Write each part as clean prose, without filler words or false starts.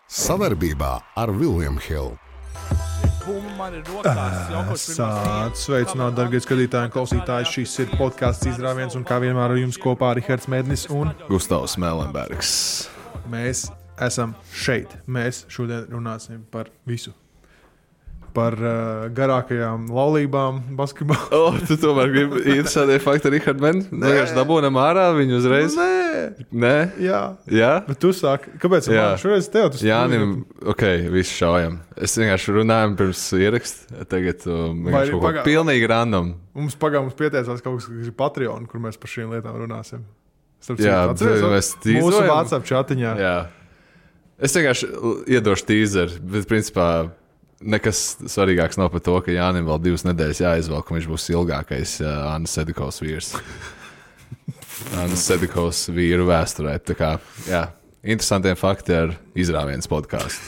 Sadarbībā ar William Hill. Sveicināt, dargie skatītāji un klausītāji. Šis ir podcasts Izrāviens un kā vienmēr ar jums kopā Rihards Mednis un Gustavs Mēlenbergs. Mēs esam šeit. Mēs šodien runāsim par visu. Par garākajām laulībām basketbolā. Tu tomēr gribi interesantie fakti Rihards Mednis? Vienkārši dabūnam ārā viņu uzreiz? Nē? Jā? Bet tu sāki. Kāpēc? Šoreiz tev tas Jānim, visu šaujam. Es vienkārši runāju pirms ierakst. Tagad vienkārši kaut ko pilnīgi random. Mums pieteicās kaut kas ir Patreon, kur mēs par šīm lietām runāsim. Mēs tīzojam. Mūsu WhatsApp čatiņā. Jā. Es vienkārši iedošu tīzeri, bet principā nekas svarīgāks nav par to, ka Jānim vēl 2 nedēļas jāizvelk, un viņš būs ilgākais Annas Sedikovs vīrs. Annas Sedikovs vīru vēsturē. Tā kā, interesantiem fakti ar Izrāviens podcastu.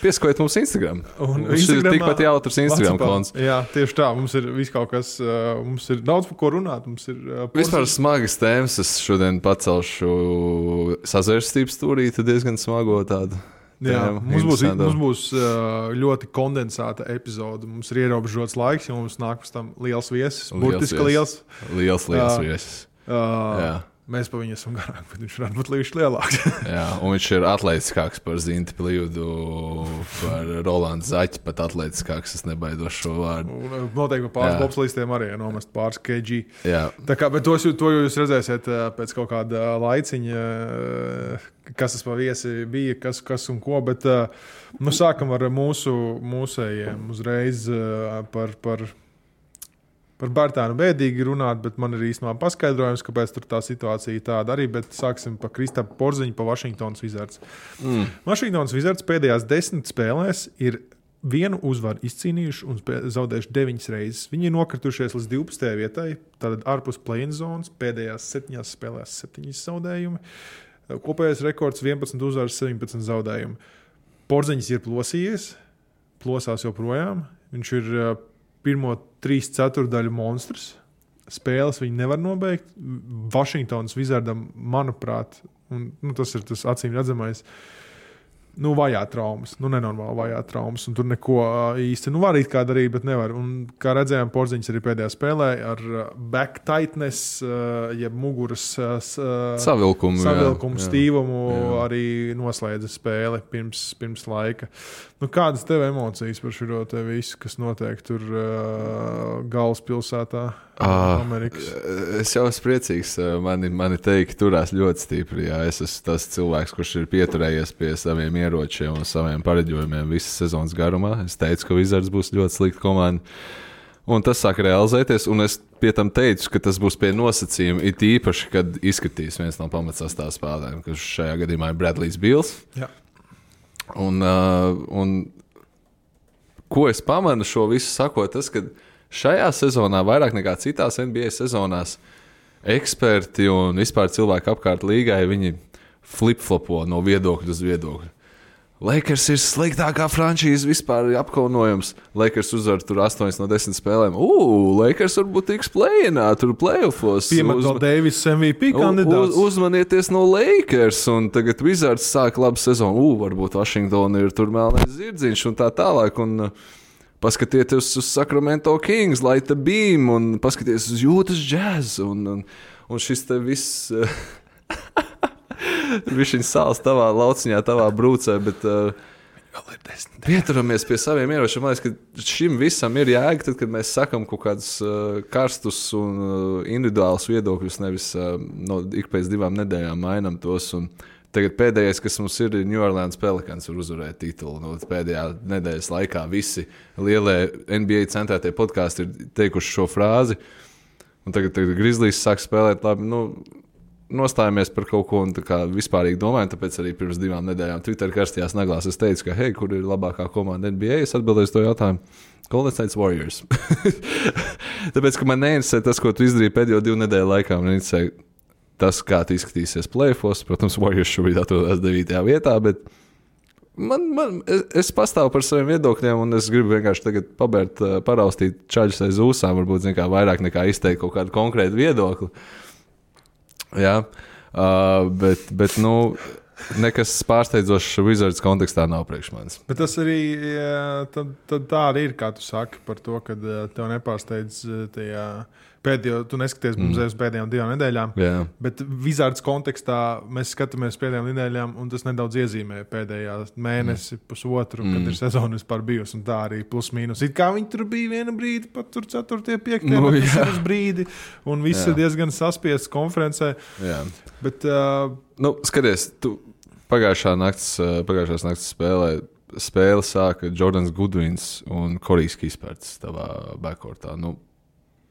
Piesakojiet mums Instagram. Mums ir tikpat jautrs Instagram konts. Jā, tieši tā. Mums ir viss kaut kas, mums ir daudz par ko runāt. Mums ir vispār smagas tēmas. Es šodien pacelšu sazvērstības stūrīti diezgan smago tādu. Jā, mums būs ļoti kondensēta epizode. Mums ir ierobežots laiks, jo mums nāk pēc tam liels viesis. Burtiski liels. Liels viesis. Mēs pa viņu esam garāk, bet viņš varētu būt līdz lielāks. Jā, un viņš ir atletiskāks par Zinti Plīvudu, par Rolandu Zaķi, pat atletiskāks. Es nebaidos šo vārdu. Noteikti pāris bobslīstiem arī nomest pāris kg. Jā. Tā kā, bet to jūs redzēsiet pēc kaut kāda laiciņa, kas tas pa viesi bija, kas un ko, bet sākam ar mūsējiem uzreiz par Bērtānu bēdīgi runāt, bet man ir īstenībā paskaidrojums, kāpēc tur tā situācija tāda arī, bet sāksim par Kristapu Porziņu, pa Washingtonas Wizards. Washingtonas Wizards pēdējās 10 spēlēs ir 1 uzvaru izcīnījuši un zaudējuši 9 reizes. Viņi ir nokritušies līdz 12. vietai, tātad ārpus play-in zonas, pēdējās 7 spēlēs 7 zaudējumi. Kopējais rekords 11 uzvaras, 17 zaudējumi. Porziņš ir plosās joprojām. Viņš ir pirmo 3/4 monstrs. Spēles viņi nevar nobeigt. Washingtonas Wizardam, manuprāt, un tas ir tas acīm redzamais, vajā traumas, nenormāli vajā traumas, un tur neko īsti, var it kā darīt, bet nevar. Un kā redzējām, Porziņš arī pēdējā spēlē ar back tightness, jeb muguras savilkumu stīvumu arī noslēdza spēli pirms laika. Kādas tev emocijas par šo te visu, kas notiek tur galvaspilsētā Amerikas? Es jau esmu priecīgs. Mani teikti turās ļoti stipri. Jā. Es esmu tas cilvēks, kurš ir pieturējies pie saviem ieročiem un saviem pareģojumiem visas sezonas garumā. Es teicu, ka Wizards būs ļoti slikta komanda. Un tas sāk realizēties, un es pie tam teicu, ka tas būs pie nosacījuma, it īpaši, kad izskatīs viens no pamatsastāvā spēlētājiem, kas šajā gadījumā ir Bradlijs Bīls. Jā. Un ko es pamanu šo visu sakot, tas, ka šajā sezonā vairāk nekā citās NBA sezonās eksperti un vispār cilvēki apkārt līgai, viņi flip-flopo no viedokļa uz viedokļu. Lakers ir sliktākā frančīze vispār apkaunojums. Lakers uzvar tur 8 no 10 spēlēm. Lakers varbūt tiks play-inā, tur play-offos. Piemet vēl Davis MVP kandidāts. Uzmanieties no Lakers, un tagad Wizards sāk labu sezonu. Varbūt Washington ir tur melnais zirdziņš un tā tālāk. Un paskatieties uz Sacramento Kings, Light the Beam, un paskatieties uz Utah Jazz. Un šis te viss... Viņš sāls tavā lauciņā, tavā brūcē, bet pieturamies pie saviem ieročiem. Man liekas, ka šim visam ir jēga, tad, kad mēs sakam kaut kādus karstus un individuālus viedokļus, nevis ik pēc 2 nedēļām mainam tos. Un tagad pēdējais, kas mums ir New Orleans Pelicans, var uzvarēt titulu. Pēdējā nedēļas laikā visi lielie NBA centrētie podkāsti ir teikuši šo frāzi. Un tagad Grizzlies sāk spēlēt labi. Nostājamies par kaut ko un tā kā vispārīgi domājam, tāpēc arī pirms 2 nedēļām Twitter karstajās naglās es teicu, ka kur ir labākā komanda NBA? Es atbildēju to jautājumu. Golden State Warriors. Tāpēc, ka man neinteresē tas, ko tu izdarīji pēdējo 2 nedēļu laikā. Man interesē tas, kā tu izskatīsies play-offos. Protams, Warriors šobrīd atrodas 9. vietā, bet es pastāvu par saviem viedokļiem un es gribu vienkārši tagad paraustīt čaļus aiz ūsām, varbūt vairāk nekā izteikt kaut kādu konkrētu viedokli. Jā, bet nekas pārsteidzošs Wizards kontekstā nav priekš manis. Bet tas arī tad tā arī ir, kā tu saki, par to, ka tev nepārsteidz tajā pēdējo, tu neskaties mums uz pēdējām 2 nedēļām, bet Wizards kontekstā mēs skatāmies pēdējām nedēļām, un tas nedaudz iezīmē pēdējā mēnesi, pusotru, kad ir sezona vispār bijusi, un tā arī plus mīnus. It kā viņi tur bija viena brīdi, pat tur 4. 5. uz brīdi, un viss ir diezgan saspiests konferencē. Jā. Bet, skaties, tu pagājušās nakts spēle sāka Jordans Goodwins un Korijs Kisperts tavā backcourtā.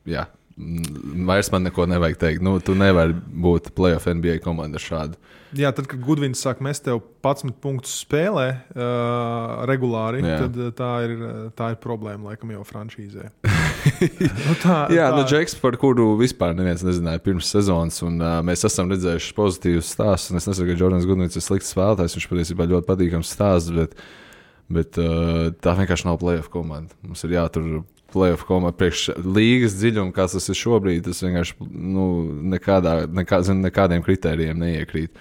Jā. Vairs man neko nevajag teikt. Tu nevari būt playoff NBA komanda šādu. Jā, tad, kad Goodwins sāk mest tev 11 punktus spēlē regulāri, tad tā ir problēma laikam jau franšīzē. Džeks, par kuru vispār neviens nezināja pirms sezonas, un mēs esam redzējuši pozitīvus stāstus, un es nesaku, ka Jordans Goodwins ir slikts spēlētājs, viņš patiesībā ļoti patīkams stāsts, bet tā vienkārši nav playoff komanda. Mums ir jātur playoff komanda priekš līgas dziļuma, kāds tas ir šobrīd, tas vienkārši nekādiem kritērijiem neiekrīt.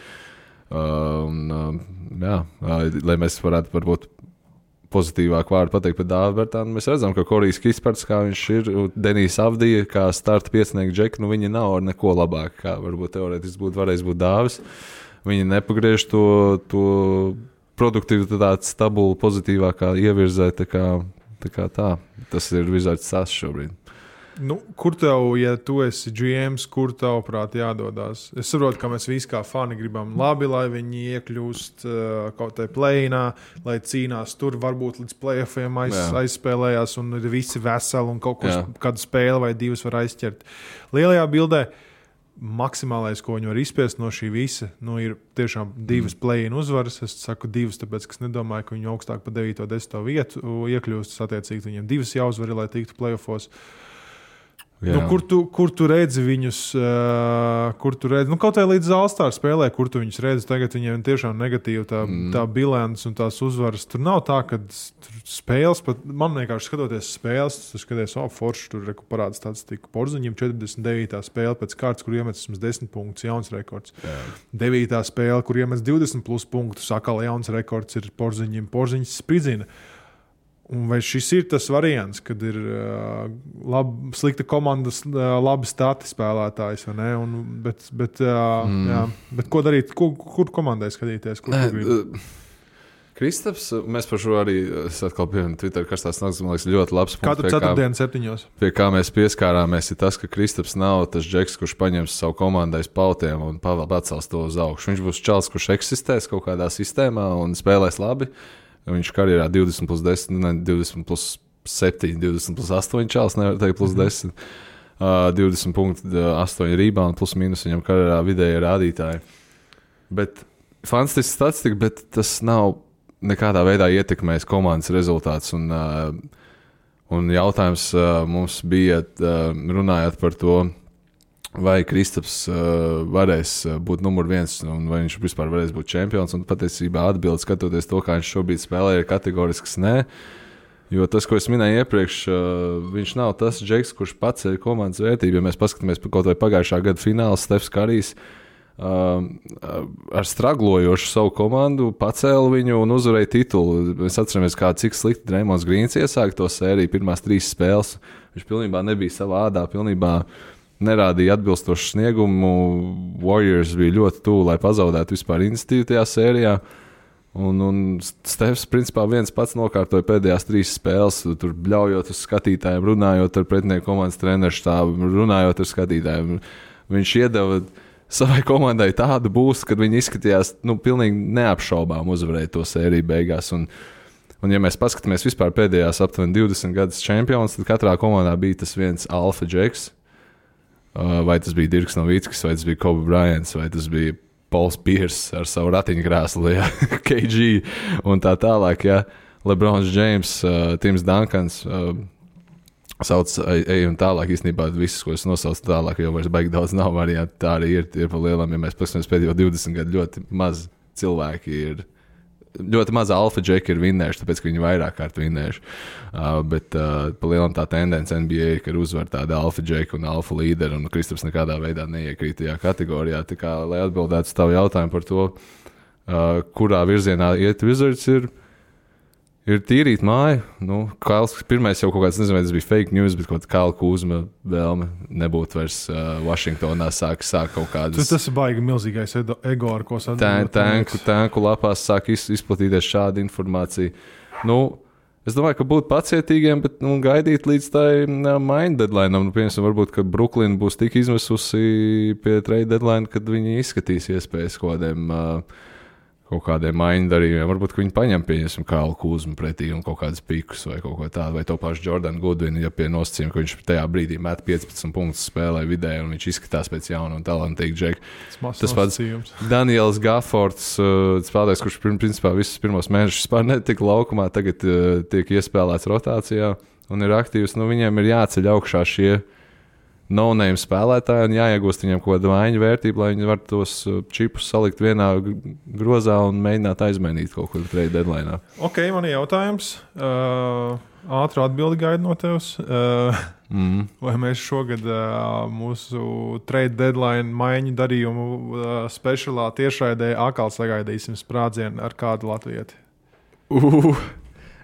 Lai mēs varētu varbūt pozitīvāk vārdu pateikt par Dāvu Bertānu, mēs redzam, ka Korijs Kisperts, kā viņš ir, Denijs Avdija, kā starta piecinieku džeki, viņi nav ar neko labāk, kā varbūt teorētiski varēs būt Dāvis. Viņi nepagriež to produktivitāti stabulu pozitīvākā ievirzē, tā. Tas ir Wizards sāsts šobrīd. Kur tev, ja tu esi GMs, kur tavuprāt jādodās? Es saprotu, ka mēs visi kā fani gribam labi, lai viņi iekļūst kaut tai play-inā, lai cīnās tur, varbūt līdz play-offiem aizspēlējās un ir visi veseli un kādu spēli vai 2 var aizķert. Lielajā bildē maksimālais, ko viņi var izspiest no šī visa, ir tiešām 2 play-in uzvaras. Es saku 2, tāpēc, ka es nedomāju, ka viņi augstāk pa 9. 10. vietu iekļūst. Attiecīgi viņiem 2 jāuzvar, lai tiktu play-offos. Kur tu redzi viņus, kaut kā līdz All-Star spēlē, kur tu viņus redzi, tagad viņiem tiešām negatīva tā bilants un tās uzvaras. Tur nav tā, ka spēles, pat man vienkārši skatoties spēles, tu skaties, forši tur parāds tāds tika Porziņiem 49. spēle pēc kārtas, kur iemet 10 punktus, jauns rekords. 9. spēle, kur iemet 20 plus punktus, atkal jauns rekords ir Porziņiem, Porziņš spridzina. Un vai šis ir tas variants, kad ir slikta komandas, labi stati spēlētājs, vai ne? Bet ko darīt? Kur komandai skatīties? Kristaps, mēs par šo arī atkal pieminam Twitter karstās naktas, man liekas, ļoti labs punkts. Katru ceturtdienu 7. Pie kā mēs pieskārāmies, ir tas, ka Kristaps nav tas džeks, kurš paņems savu komandai pautiem un pacels to uz augšu. Viņš būs čals, kurš eksistēs kaut kādā sistēmā un spēlēs labi. Viņš karjerā 20 plus 10, 20 plus 7, 20 plus 8 čāls, nevar teikt plus 10. 20 punkti, 8 rebound, plus mīnus viņam karjerā vidēji rādītāji. Bet fantastisks statistika, bet tas nav nekādā veidā ietekmējis komandas rezultāts. Un jautājums mums bija, runājot par to, vai Kristaps varēs būt numur 1 un vai viņš vispār varēs būt čempions. Un patiesībā atbildi, skatoties to, kā viņš šobrīd spēlē, ir kategorisks nē. Jo tas, ko es minēju iepriekš, viņš nav tas džeks, kurš paceļ komandas vērtību. Ja mēs paskatāmies kaut vai pagājušā gada fināls, Stefs Karijs ar straglojošu savu komandu pacēla viņu un uzvarēja titulu. Mēs atceramies, cik slikti Draymons Grīns iesāka to sēriju pirmās 3 spēles. Viņš pilnībā nebija savā ādā, pilnībā nerādīja atbilstošu sniegumu. Warriors bija ļoti tuvu, lai pazaudētu vispār iniciatīvu tajā sērijā. Un Stefs principā viens pats nokārtoja pēdējās 3 spēles, tur bļaujot uz skatītājiem, runājot ar pretinieku komandas treneru štābu, runājot ar skatītājiem. Viņš iedeva savai komandai tādu būstu, kad viņi izskatījās pilnīgi neapšaubām uzvarēt to sēriju beigās. Un ja mēs paskatāmies vispār pēdējās aptuveni 20 gadus čempions, tad katrā komandā bija tas viens alfa džeks. Vai tas bija Dirks Nowitzkis, vai tas bija Kobe Bryants, vai tas bija Pauls Pierce ar savu ratiņkrēslu, KG un tā tālāk. Ja. LeBrons James, Tims Duncans, sauc un tālāk. Īstenībā visus, ko es nosaucu tālāk, jau vairs baigi daudz nav variantu. Tā arī ir pa lielam, ja mēs paskatāmies pēdējo 20 gadu, ļoti maz cilvēki ir. Ļoti maza alfa džeki ir vinnējuši, tāpēc, ka viņi vairāk kārt vinnējuši. Bet pa lielam tā tendence NBA ir, ka uzvar tāda alfa džeki un alfa līderi, un Kristaps nekādā veidā neiekrīt tajā kategorijā. Tā kā, lai atbildētu uz tavu jautājumu par to, kurā virzienā iet Wizards, ir tīrīt māju. Nu, Kails pirmais jau kaut kāds, nezinu, vai tas bija fake news, bet kaut kāda Kaila Kūzma vēlme nebūt vairs Vašingtonā sāk kaut kādas. Tas ir baigi milzīgais ego, ar ko sadarbot. Tanku lapās sāk izplatīties šāda informācija. Nu, es domāju, ka būt pacietīgiem, bet gaidīt līdz tai mind deadline. Nu, piemēram, varbūt, ka Brooklyn būs tik izmisusi pie trade deadline, kad viņi izskatīs iespējas kaut kādiem maiņu darījumiem. Varbūt, ka viņi paņem pieņemsim Kailu Kūzmu pretī un kaut kādas pikus vai kaut ko tādu, vai to pašu Jordanu Goodwinu, ja pie nosacījuma, ka viņš tajā brīdī met 15 punktus spēlē vidēji un viņš izskatās pēc jauna un talantīga džeka. Tas pats Daniels Gaffords, spēlētājs, kurš principā visus pirmos mēnešus vispār netika laukumā, tagad tiek iespēlēts rotācijā un ir aktīvs. Nu, viņiem ir jāceļ augšā šie no-name spēlētāji un jāiegūst viņiem kaut kāda maiņu vērtība, lai viņi var tos čipus salikt vienā grozā un mēģināt aizmainīt kaut kur trade deadline. Ok, man ir jautājums. Ātru atbildi gaidu no tevis. Vai mēs šogad mūsu trade deadline maiņu darījumu speciālā tiešraidē atkal sagaidīsim sprādzienu ar kādu latvieti?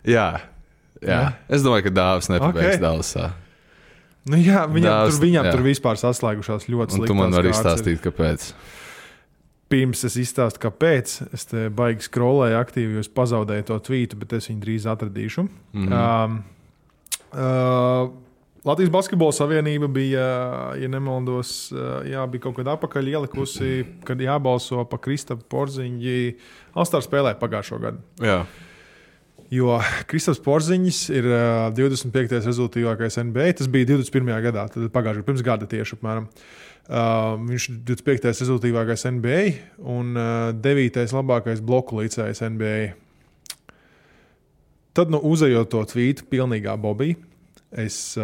Jā. Es domāju, ka Dāvis nepabeigs Dallasā. Nu jā, viņam tur vispār saslēgušās ļoti sliktās. Tu man vari izstāstīt, kāpēc. Pirms es izstāstu, kāpēc. Es te baigi scrollēju aktīvi, jo es pazaudēju to tvītu, bet es viņu drīz atradīšu. Latvijas Basketbola Savienība bija, ja nemaldos, bija kaut kad apakaļ ielikusi, kad jābalso pa Kristapu Porziņģi. All-Star spēlē pagājušo gadu. Jā. Jo Kristaps Porziņš ir 25. rezultātīvākais NBA. Tas bija 21. gadā, tad pagājušajā pirms gada tieši apmēram. Viņš ir 25. rezultātīvākais NBA un 9. labākais bloku līdzējs NBA. Tad, uzejot to tvītu pilnīgā bobī, es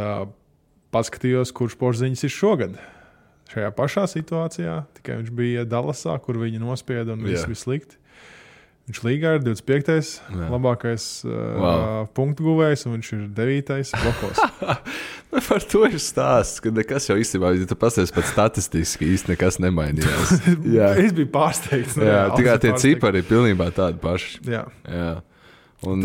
paskatījos, kurš Porziņš ir šogad. Šajā pašā situācijā, tikai viņš bija Dallasā, kur viņi nospieda un viss bija slikti. Viņš līgā ir 25. labākais punktu guvējs, un viņš ir 9. blokos. Par to ir stāsts, ka nekas jau īstenībā, ja tu pasties pat statistiski, īsti nekas nemainījās. Es biju pārsteigts. Tikai tie cipari ir pilnībā tādi paši. Jā. Un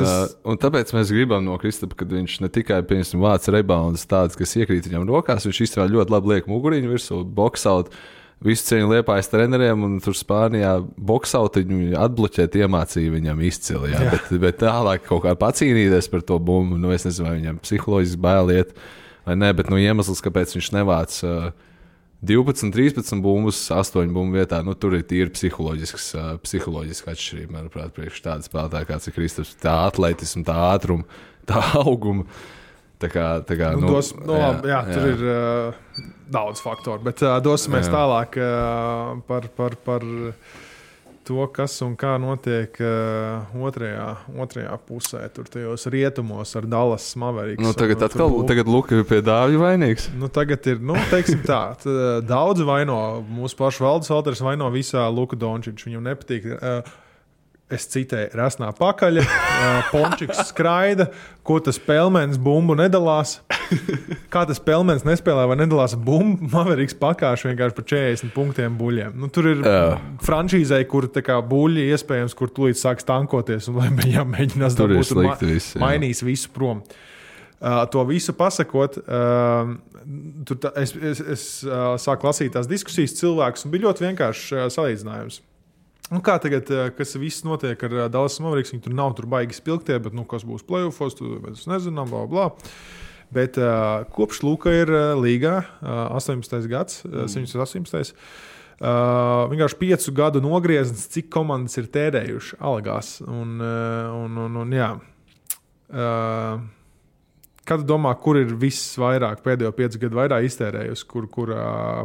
tāpēc mēs gribam no Kristapa, kad viņš ne tikai vāc reboundus tādus, kas iekrīt viņam rokās, viņš īstenībā ļoti labi liek muguriņu virsū, boxaut. Visu cieņu Liepājas treneriem, un tur Spānijā boksautiņu atbloķēt iemācīja viņam izcili. Bet tālāk kaut kā pacīnīties par to bumbu, es nezinu, vai viņam psiholoģiski bailiet vai ne, bet iemesls, kāpēc viņš nevāc 12, 13 bumbus, 8 bumbu vietā, tur ir tīri psiholoģiska atšķirība, manuprāt, priekš tāda spēlētāja, kāds ir Kristaps, tā atletisma, tā ātruma, tā auguma. Tā kā, tur ir daudz faktoru, bet dosimies tālāk par to, kas un kā notiek otrajā pusē, tur tajos rietumos ar Dallas Mavericks. Tagad Luka ir pie Dāvja vainīgs. Tagad ir, teiksim tā, daudzi vaino, mūsu pašu valdes valters vaino visā Luka Dončiču, viņam nepatīk. Es citēju, rasnā pakaļa, Pončiks skraida, ko tas Pelmens bumbu nedalās. Kā tas Pelmens nespēlē vai nedalās bumbu, Mavericks pakāš vienkārši par 40 punktiem buļļiem. Tur ir franšīzei, kur buļļi iespējams, kur tūlīt sāks tankoties un lai viņam mēģinās dabūt mainīs visu prom. To visu pasakot, es sāku lasīt tās diskusijas cilvēkus un bija ļoti vienkārši salīdzinājums. Kā tagad, kas viss notiek ar Dallas Mavericks, viņi tur nav baigi spilgtie, bet kas būs playoffos, mēs nezinām, bla. Bet kopš Luka ir līgā, 18. gads, 118. Vienkārši 5 gadu nogrieznis, cik komandas ir tērējuši algās. Kad domā, kur ir viss vairāk, pēdējo 5 gadu vairāk iztērējusi, kur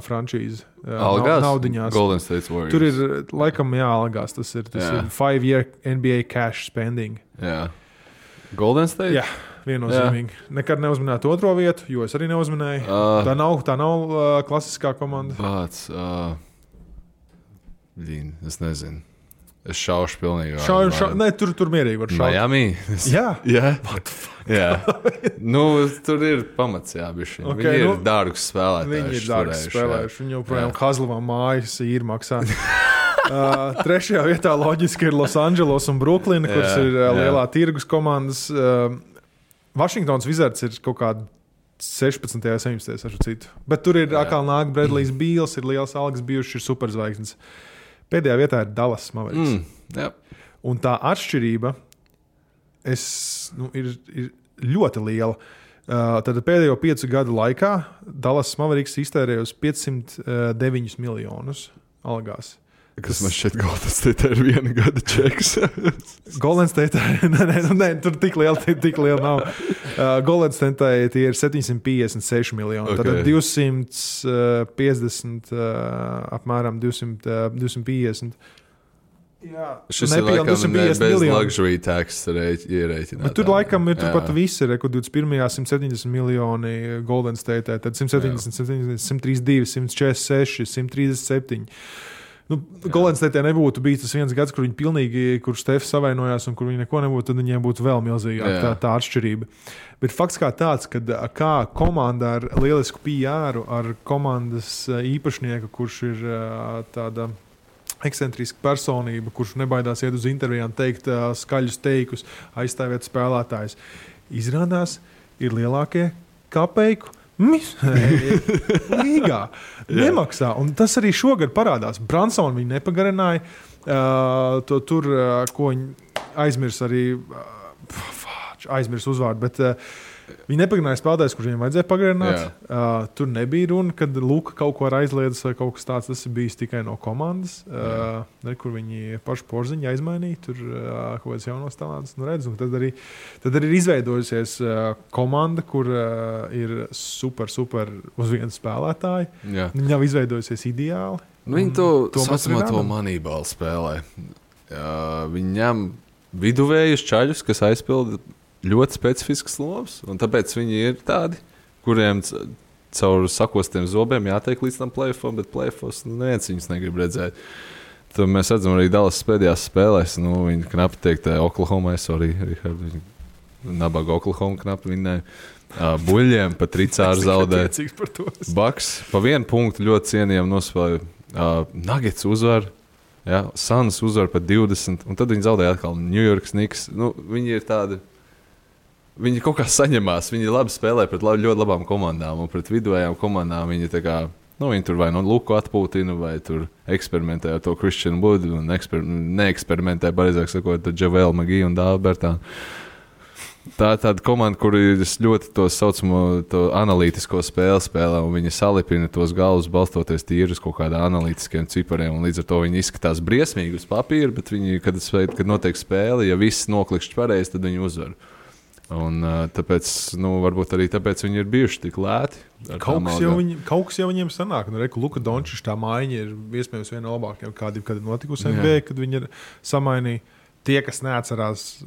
franšīze naudiņās? Golden State Warriors. Tur ir, laikam, algās. Tas ir 5-year NBA cash spending. Jā. Golden State? Jā, viennozīmīgi. Nekad neuzminētu otro vietu, jo es arī neuzminēju. Tā nav klasiskā komanda. Es nezinu. Es šaušu pilnīgi. Nē, tur mierīgi var šaut. Miami? Jā. Tur ir pamats, bišķi. Okay, viņi ir dārgus spēlētāji. Viņi ir dārgus spēlējuši. Viņi joprojām Hazlavā mājas īri maksā. Trešajā vietā loģiski ir Losandželos un Bruklina, kuras ir lielā tirgus komandas. Vašingtons Wizards ir kaut kāda 16. un 17. ar citu. Bet tur ir atkal nāk Bradley's Beals, ir liels algas bijuši, ir superzvaigznes. Pēdējā vietā ir Dallas Mavericks. Un tā atšķirība ir ļoti liela. Tad pēdējo 5 gadu laikā Dallas Mavericks iztērēja uz 509 miljonus algās. Kas man šķiet, Golden State ir 1 gada čeks. Golden State, nē, tur tik liela nav. Golden State tie ir 756 miljoni. Okay. Tad 250, apmēram 250. Jā, šis ir laikam bez luxury tax ierēķināt. Bet tur laikam ir turpat viss, ir 21. 170 miljoni Golden State, tad 170, 132, 146, 137. Golden State nebūtu bijis tas viens gads, kur viņi pilnīgi, kur Stefs savainojās un kur viņi neko nebūtu, tad viņiem būtu vēl milzīgāka tā atšķirība. Bet fakts kā tāds, ka kā komanda ar lielisku PR, ar komandas īpašnieku, kurš ir tāda ekscentriska personība, kurš nebaidās iet uz intervijām, teikt skaļus teikus, aizstāvēt spēlētājus, izrādās ir lielākie kapeiku līgā. Nemaksā. Un tas arī šogad parādās. Bransonu viņi nepagarināja. Tur, ko viņi aizmirs uzvārdu, bet viņi nepagarināja spēlētājus, kurš viņiem vajadzēja pagarināt. Tur nebija runa, kad Luka kaut ko aizliedz vai kaut kas tāds. Tas ir bijis tikai no komandas, kur viņi pašu porziņu aizmainīja. Tur kaut kāds jaunos talants. Tad arī ir izveidojusies komanda, kur ir super uz vienu spēlētāju. Viņi nav izveidojusies ideāli. Viņi to saucamā to Moneyball spēlē. Viņi ņem viduvējus čaļus, kas aizpilda ļoti specifisks lomas, un tāpēc viņi ir tādi, kuriem caur sakostiem zobiem jātiek līdz tam play-offam, bet play-offos neviens viņus negrib redzēt. Tad mēs redzam arī Dallas pēdējās spēlēs, viņi knapi teikt Oklahomai, Richard, nabaga Oklahoma knapi vinnēja. Buļļiem pa tricāru zaudē. Bucks pa 1 punktu ļoti cienījami nospēlēja. Nuggets uzvar, Suns uzvar pa 20, un tad viņi zaudēja atkal New York Knicks. Viņi ir tādi. Viņi kaut kā saņemās, viņi labi spēlē pret ļoti labām komandām, un pret viduvējām komandām viņi tā kā, viņi tur vai Luku atpūtina, vai tur eksperimentē ar to Christian Wood, un neeksperimentē, pareizāk sakot, ar Javale McGee un Dalbertānu. Tā ir tāda komanda, kur ir ļoti to saucamo to analītisko spēlē, un viņi salipina tos galvus balstoties tīri uz kaut kādām analītiskiem cipariem, un līdz ar to viņi izskatās briesmīgi uz papīra, bet viņi, kad notiek spēle, ja viss noklikšķi pareizi, tad viņi uzvar. Un tāpēc, varbūt arī tāpēc viņi ir bijuši tik lēti. Kaut kas jau viņiem sanāk. Luka Dončičs tā maiņa ir iespējams viena no labākajām, kad ir notikusi NBA, kad viņi ir samainījuši. Tie, kas neatcerās,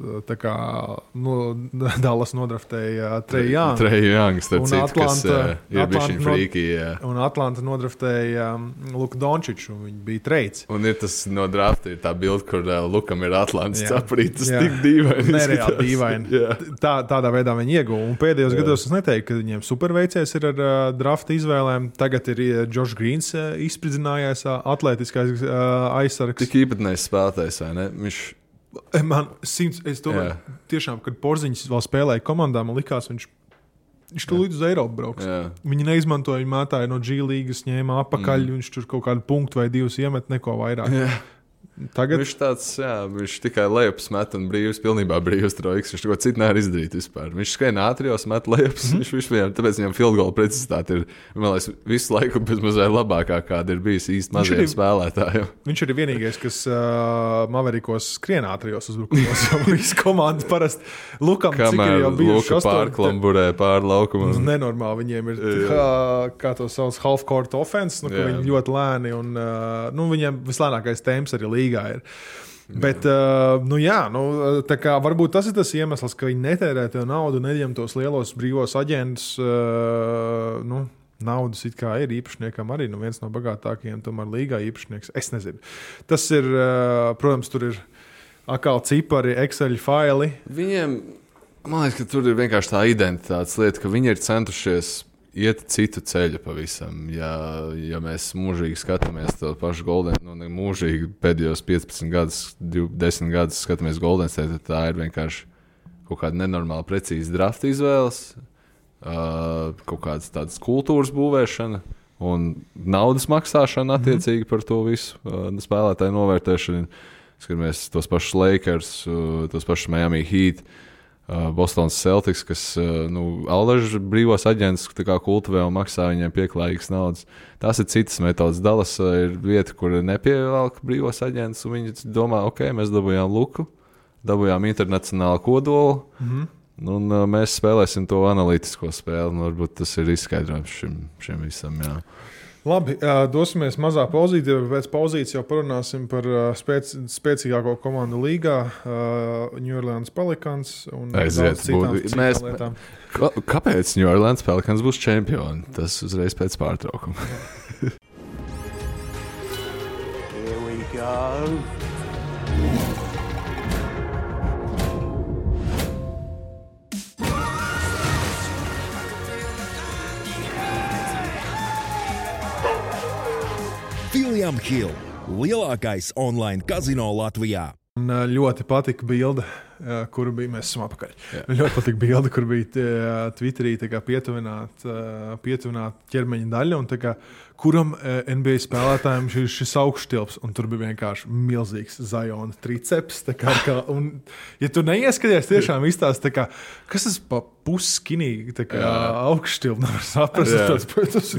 Dallas nodraftēja Trae Young. Trae Young, starp citu, kas ir bišķiņ frīki. Un Atlanta nodraftēja Luka Dončiču, un viņi bija trades. Un ir tas no drafta, ir tā bilde, kur Lukam ir Atlantas caprīt, tas tik dīvaini. Nereāli dīvaini. Tādā veidā viņi ieguva. Un pēdējos gados es neteiktu, ka viņiem superveicies ir ar drafta izvēlēm. Tagad ir Josh Greens izspridzinājās atlētiskais aizsargs. Tik īpatnējs spēlētājs, vai ne? Es domāju, tiešām, kad Porziņš vēl spēlēja komandā, man likās, viņš tur līdz uz Eiropu brauks. Viņi neizmantoja, viņi mētāja no G līgas, ņēma apakaļ, viņš tur kaut kādu punktu vai 2 iemet, neko vairāk. Tagad viņš tāds, viņš tikai lejups met un pilnībā brīvs trojks. Viņš neko citu nevar izdarīt vispār. Viņš skrien ātrijos, met lejups. Tāpēc viņam field goal precizitāte ir, man liekas, visu laiku bezmazliet labākā, kāda ir bijis īsti maziem spēlētājiem. Viņš ir vienīgais, kas Maverikos skrien ātrijos uzbrukumos. Visi komandi parasti Lukam, cik ir jau bijuši Luka pārklamburē pār laukumu. Nenormāli viņiem ir, kā to sauc, half-court offense, kur viņi ļoti lēni un viņiem vislēnākais temps arī līgā ir. Bet, tā kā varbūt tas ir tas iemesls, ka viņi netērē to naudu, neņem tos lielos brīvos aģentus. Naudas it kā ir īpašniekam arī, viens no bagātākajiem tomēr līgā īpašnieks. Es nezinu. Tas ir, protams, tur ir atkal cipari, Excel faili. Viņiem, man liekas, ka tur ir vienkārši tā identitātes lieta, ka viņi ir centušies iet citu ceļu pavisam. Ja mēs mūžīgi skatāmies to pašu Golden, mūžīgi pēdējos 15 gadus, 10 gadus skatāmies Golden State, tad tā ir vienkārši kaut kāda nenormāli precīza drafta izvēles, kaut kādas tādas kultūras būvēšana un naudas maksāšana attiecīgi par to visu, spēlētāju novērtēšanu. Skatāmies tos pašus Lakers, tos pašus Miami Heat, Bostonas Celtics, kas allaž brīvos aģentus kultivē un maksā viņiem pieklājīgas naudas. Tās ir citas metodas. Dallas ir vieta, kur nepievelk brīvos aģentus, un viņi domā, ok, mēs dabūjām Luku, dabūjām internacionālu kodolu, un mēs spēlēsim to analītisko spēli. Varbūt tas ir izskaidrojums šim visam. Jā. Labi, dosimies mazā pauzītē, bet pēc pauzītes jau parunāsim par spēcīgāko komandu līgā, New Orleans Pelicans un daudz citām lietām. Kāpēc New Orleans Pelicans būs čempioni? Tas uzreiz pēc pārtraukuma. Here we go. William Hill, lielākais online kazino Latvijā. Un ļoti patika bilde, kuru bija, mēs esam apakaļ. Ļoti patika bilde, kur bija Twitterī pietuvināt ķermeņa daļa, un kuram NBA spēlētājiem šis augšstilps, un tur bija vienkārši milzīgs Ziona triceps. Un, ja tu neieskaties, tiešām izstāst, kas tas pa pusskinīgi augšstilps, nevar saprast. Tas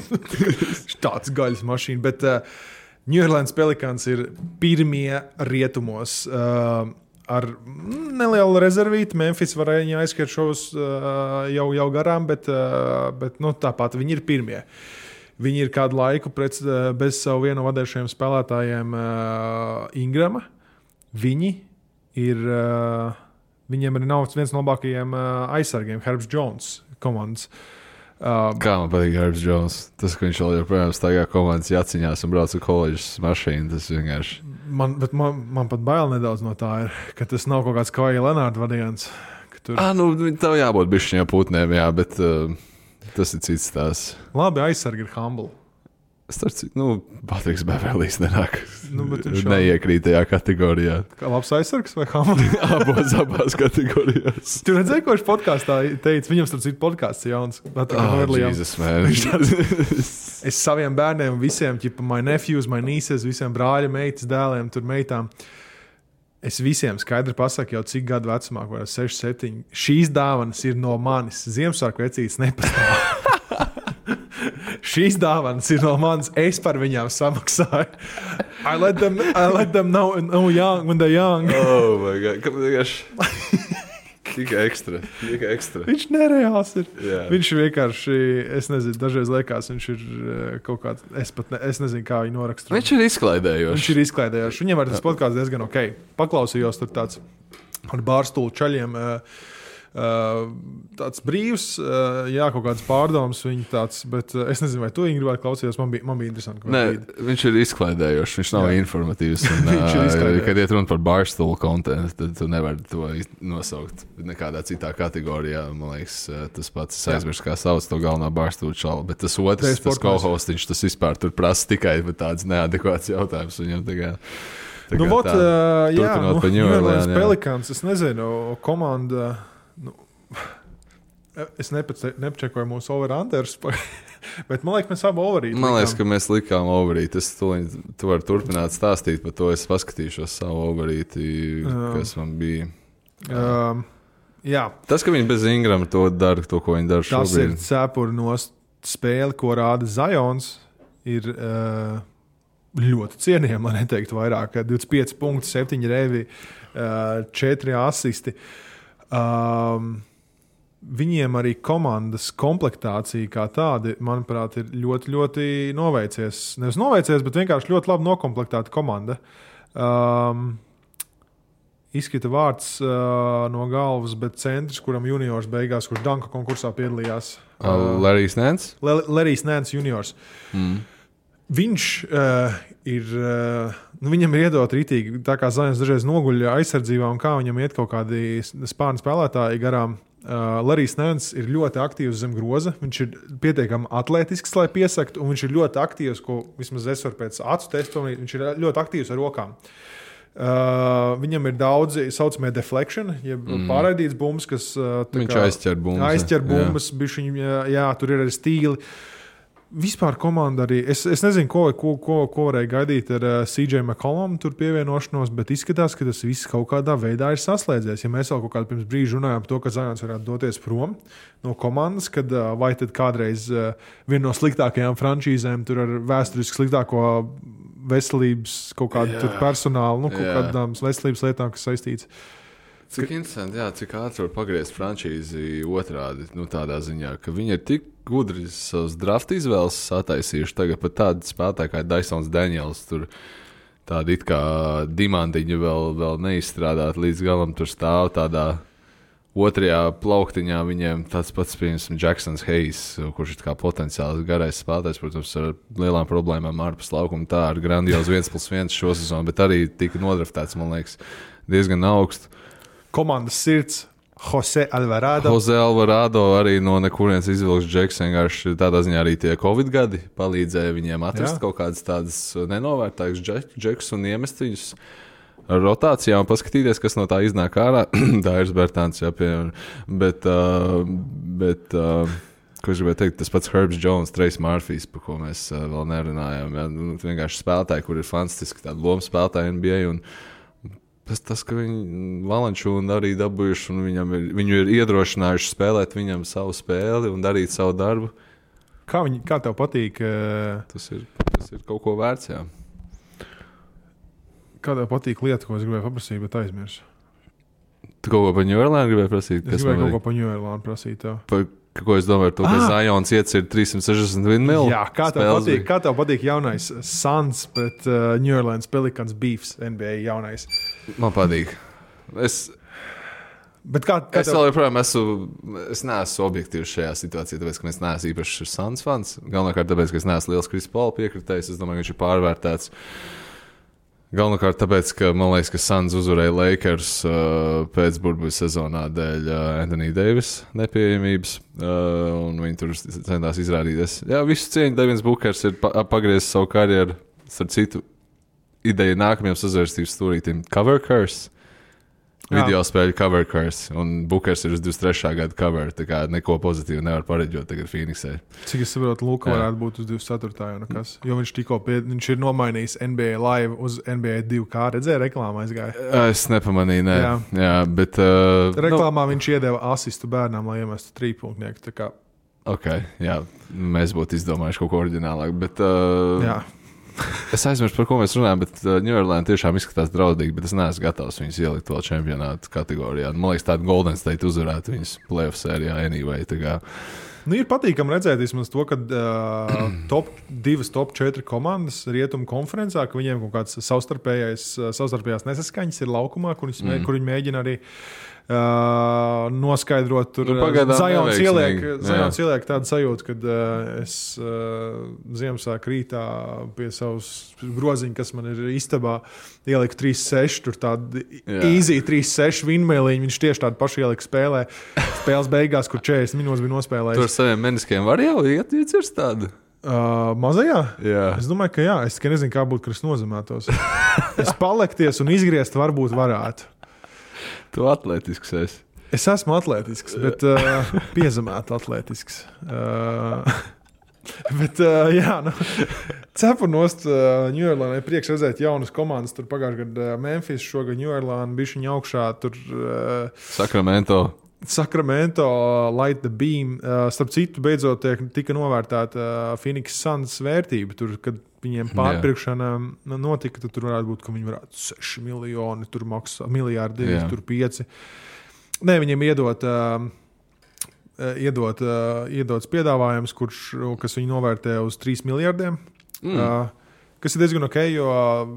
tāds gaļas mašīna, bet New Orleans Pelicans ir pirmie rietumos ar nelielu rezervīti. Memphis varēja viņu aizskriet šos jau garām, bet tāpat viņi ir pirmie. Viņi ir kādu laiku bez savu vienu vadējušajiem spēlētājiem Ingrama. Viņiem arī nav viens no labākajiem aizsargiem, Herbs Jones komandas. Kā man patīk Herbs Jones. Tas, ka viņš vēl joprojām staigā komandas jaciņās un brauc ar koledžas mašīnu, tas vienkārši... Man pat bail nedaudz no tā ir, ka tas nav kaut kāds Kawhi Leonard variants. Tur... Tev jābūt bišķiņā putnēm, jā, bet tas ir cits tās. Labi, aizsargi ir humble. Patriks Beverlijs nenāk. Neiekrīt tajā kategorijā. Kā labs aizsargs vai humble? Abās kategorijās. Tu redzēji, ko viņš podkāstā teica? Viņam starp citu podkāsts jauns. Jesus, man. Es saviem bērniem visiem, my nephews, my nieces, visiem brāļa, meitas, dēliem, tur meitām. Es visiem skaidri pasaku jau cik gadu vecumā, 6, 7. Šīs dāvanas ir no manis. Ziemassvētku vecītes nepastāv. Šīs dāvanas ir no manis. Es par viņām samaksāju. I let them know when they're young. Oh my God. Tikai ekstra. Viņš nereāls ir. Yeah. Viņš vienkārši, es nezinu, dažreiz liekas, viņš ir kaut kāds, es nezinu, kā viņu norakstīt. Viņš ir izklaidējošs. Viņam arī tas podkāsts diezgan ok. Paklausījos tur tāds ar bārstulu čaļiem. Tāds brīvs, kaut kāds pārdoms viņa tāds, bet es nezinu, vai tu Ingri vai klausījos, man bija interesanti. Nē, viņš ir izklaidējošs, viņš nav informatīvs. Kad iet runa par barstool kontentu, tad tu nevari to nosaukt nekādā citā kategorijā. Man liekas, tas pats aizmirst, kā sauc to galvenā barstool čalu, bet tas otrs, tas co-hostiņš, tas vispār tur prasa tikai tāds neadekvāts jautājums viņam tagad. Turpinot par New Orleans Pelicans, es nezinu, komanda... Es nepačekoju mūsu over-unders, bet man liekas, mēs abi overīt. Man liekas, ka mēs likām overīt. Tu vari turpināt stāstīt par to. Es paskatīšos savu overīti, kas man bija. Jā. Tas, ka viņi bez Ingrama to dara, to, ko viņi dara šobrīd. Tas ir cepuri no spēli, ko rāda Zions, ir ļoti cienījami, lai neteiktu vairāk. 25 punkti, 7 revi, 4 asisti. Viņiem arī komandas komplektācija kā tāda, manuprāt, ir ļoti, ļoti noveicies. Nevis noveicies, bet vienkārši ļoti labi nokomplektēta komanda. Izkrita vārds no galvas, bet centrs, kuram juniors beigās, kurš danka konkursā piedalījās. Larrys Nance? Larrys Nance juniors. Viņš ir, viņam ir iedot rītīgi, tā kā Zions dažreiz noguļ aizsardzībā un kā viņam iet kaut kādi spārni spēlētāji garām. Larijs Nēns ir ļoti aktīvs zem groza. Viņš ir pietiekami atletisks, lai piesaktu, un viņš ir ļoti aktīvs, ko vismaz es varu pēc acu testu, viņš ir ļoti aktīvs ar rokām. Viņam ir daudzi saucamie deflection, jeb pārraidīts bumbas, kas viņš aizķer bumbas. Aizķer bumbas, tur ir arī stīli. Vispār komanda arī, es nezinu, ko varēja gaidīt ar CJ McCollum tur pievienošanos, bet izskatās, ka tas viss kaut kādā veidā ir saslēdzies. Ja mēs vēl kaut kādu pirms brīža runājām par to, ka Zions varētu doties prom no komandas, kad vai tad kādreiz viena no sliktākajām frančīzēm tur ar vēsturiski sliktāko veselības kaut kādu tur personālu, kaut kādām veselības lietām, kas saistīts. Cik interesanti, cik ātri var pagriezt frančīzi otrādi, tādā ziņā, ka viņi ir tik gudri savus draft izvēles sataisījuši. Tagad pat tādi spēlētāji kā Dysons Daniels, tur tādi it kā dimantiņi vēl neizstrādāt līdz galam, tur stāv tādā otrajā plauktiņā viņiem tāds pats, piemēram, Jacksons Hayes, kurš ir kā potenciāls garais spēlētājs, protams, ar lielām problēmām ārpus laukuma, tā ar grandiozu 1+1 šo sezonu, bet arī tika nodraftēts, man liekas, diezgan augstu. Komandas sirds Jose Alvarado. Jose Alvarado arī no nekurienes izvilks džeks, vienkārši tādā ziņā arī tie Covid gadi palīdzēja viņiem atrast kaut kādas tādas nenovērtākas džekus un iemest viņus ar rotācijām un paskatīties, kas no tā iznāk ārā. Dairis Bertāns, piemēram. Bet ko es gribēju teikt, tas pats Herbs Jones, Trace Murphys, par ko mēs vēl nerunājām. Vienkārši spēlētāji, kur ir fantastiski tādi lomu spēlētāji NBA un tas, ka viņi Valančūnu arī dabūjuši un viņu ir iedrošinājuši spēlēt viņam savu spēli un darīt savu darbu. Kā tev patīk? Tas ir kaut ko vērts, jā. Kā tev patīk lieta, ko es gribēju paprasīt, bet aizmirsu? Tu kaut ko par New Orleans gribēji prasīt? Es gribēju kaut ko par New Orleans prasīt, tev. Ko es domāju, to, ka Zions iecir 361 mil? Jā, kā tev patīk jaunais Suns pret New Orleans Pelicans beefs NBA jaunais? Man patīk. Es vēl joprojām es neesmu objektīvs šajā situācijā, tāpēc, ka es neesmu īpaši Suns fans. Galvenokārt tāpēc, ka es neesmu liels Chris Paul piekritējs. Es domāju, ka viņš ir pārvērtēts. Galvenokārt tāpēc, ka man liekas, ka Suns uzvarēja Lakers pēc burbuļu sezonā dēļ Anthony Davis nepieejamības, un viņi tur centās izrādīties. Jā, visu cieņu Devins Bookers ir pagriezis savu karjeru, starp citu ideja nākamajam sazvērstības stūrītim Cover Curse. Video spēļu Cover Curse, un Bookers ir uz 23. gada cover, tā kā neko pozitīvu nevar pareģot tagad Phoenixē. Cik es saprotu, Luka varētu būt uz 24. jau nekas, jo viņš ir nomainījis NBA Live uz NBA 2K, redzēja reklāmā aizgāja? Es nepamanīju, jā, bet... reklāmā viņš iedeva asistu bērnām, lai iemestu trīpunktnieku, tā kā... Ok, jā, mēs būtu izdomājuši kaut ko oriģinālāk, bet... jā. Es aizmirsu, par ko mēs runājam, bet New Orleans tiešām izskatās draudīgi, bet es neesmu gatavs viņus ielikt vēl čempionātu kategorijā. Man liekas, tāda Golden State uzvarētu viņus playoff sērijā anyway. Ir patīkami redzēt vismaz to, ka top 4 komandas rietumu konferencā, ka viņiem kaut kāds savstarpējās nesaskaņas ir laukumā, kur viņi mēģina arī noskaidrot. Tur Zions ieliek tādu sajūtu, kad es Ziemassvētku rītā pie savas groziņa, kas man ir istabā, ieliku 3-6, tur tādu easy 3-6 vinmēliņu, viņš tieši tādu pašu ielika spēles beigās, kur 40 minūtes bija nospēlējis. Tur saviem meniskiem var jau iecirst tādu? Mazajā? Jā. Es domāju, ka jā. Es nezinu, kā būtu, ka es nozemētos. Es palekties un izgriezt varbūt varētu. Tu atletisks esi. Es esmu atletisks, bet piezemēt atletisks. Bet, cepu nost New Orleans priekš redzēt jaunas komandas. Tur pagājušajā gadā Memphis, šogad New Orleans, bišķiņa augšā. Tur Sacramento, Light the Beam. Starp citu, beidzot tika novērtēta Phoenix Suns vērtība. Tur, kad viņiem pārpirkšana notika, tad tur varētu būt, ka viņi varētu 6 miljoni, tur maksā miljārdi, tur 5. Nē, viņiem iedots piedāvājums, kas viņi novērtē uz 3 miljardiem. Kas ir diezgan ok, jo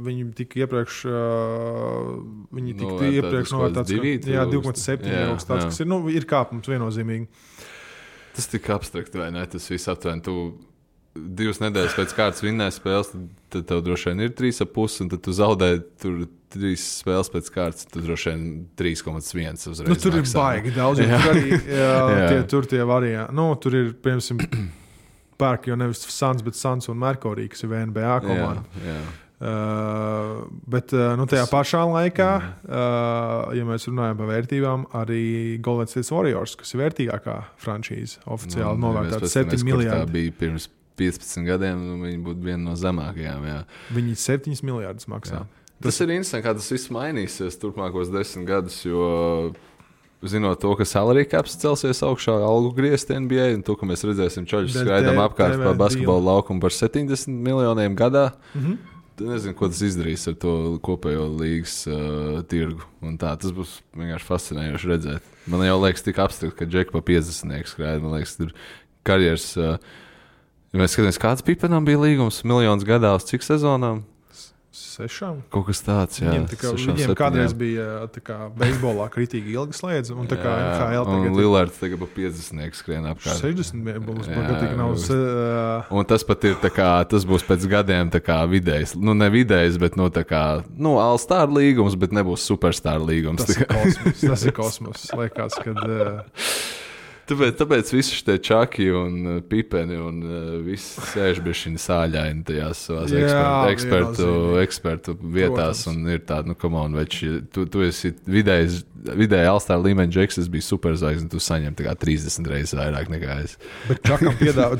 viņi tika iepriekš novērtēts 2,7 kaut tāds, kas ir kāpums viennozīmīgi. Tas tik abstrakti, vai ne? Tas viss aptuveni. 2 nedēļas pēc kārtas vinnēja spēles, tad tev droši vien ir 3,5, un tad tu zaudēji tur 3 spēles pēc kārtas, tad droši vien 3,1 uzreiz. Nu, tur ir baigi daudz, tur arī tur tie varianti. Nu, tur ir, piemēram, pērk jau nevis Suns, bet Suns un Merkurī, kas ir NBA komanda. Bet tajā pašā laikā, ja mēs runājam par vērtībām, arī Golden State Warriors, kas ir vērtīgākā franšīze, oficiāli novērtēta 7 miljardi. Tā bija pirms 15 gadiem, viņi būtu viena no zemākajām. Jā. Viņi 7 miljardus maksā. Jā. Tas ir interesanti, kā tas viss mainīsies turpmākos 10 gadus, jo zinot to, ka salary caps celsies augšā, algu griezti NBA, un to, ka mēs redzēsim čaļus skraidām apkārt pa basketbola laukumu par 70 miljoniem gadā, nezinu, ko tas izdarīs ar to kopējo līgas tirgu. Un tā, tas būs vienkārši fascinējoši redzēt. Man jau liekas tik abstrakt, ka Džeki pa 50 skraida. Man liekas, tur karjeras, ja mēs skatāmies, kāds Pipenam bija līgums, miljonus gadā uz cik sezonām? 6. Kaut kas tāds, jā. Viņiem kādreiz bija beisbolā kritīgi ilgi slēdz, un tā kā NHL tagad... Un Lillards tagad pa 50 skrien apkārt. 60 būs pagatīgi nav... Un tas pat ir tā kā, tas būs pēc gadiem tā kā vidējs, nu ne vidējs, bet no tā kā, nu All-Star līgums, bet nebūs Superstar līgums. Tas ir kosmos, liekas, kad... Tāpēc visi šie čaki un pipeni un viss sēž bišķiņi sāļaini tajās savās ekspertu vietās. Protams. Un ir tāda, nu, come on, veči, tu esi vidēji All-Star līmeņa džeks, es biju superzvaigzne, tu saņem tā kā 30 reizes vairāk nekā es. Bet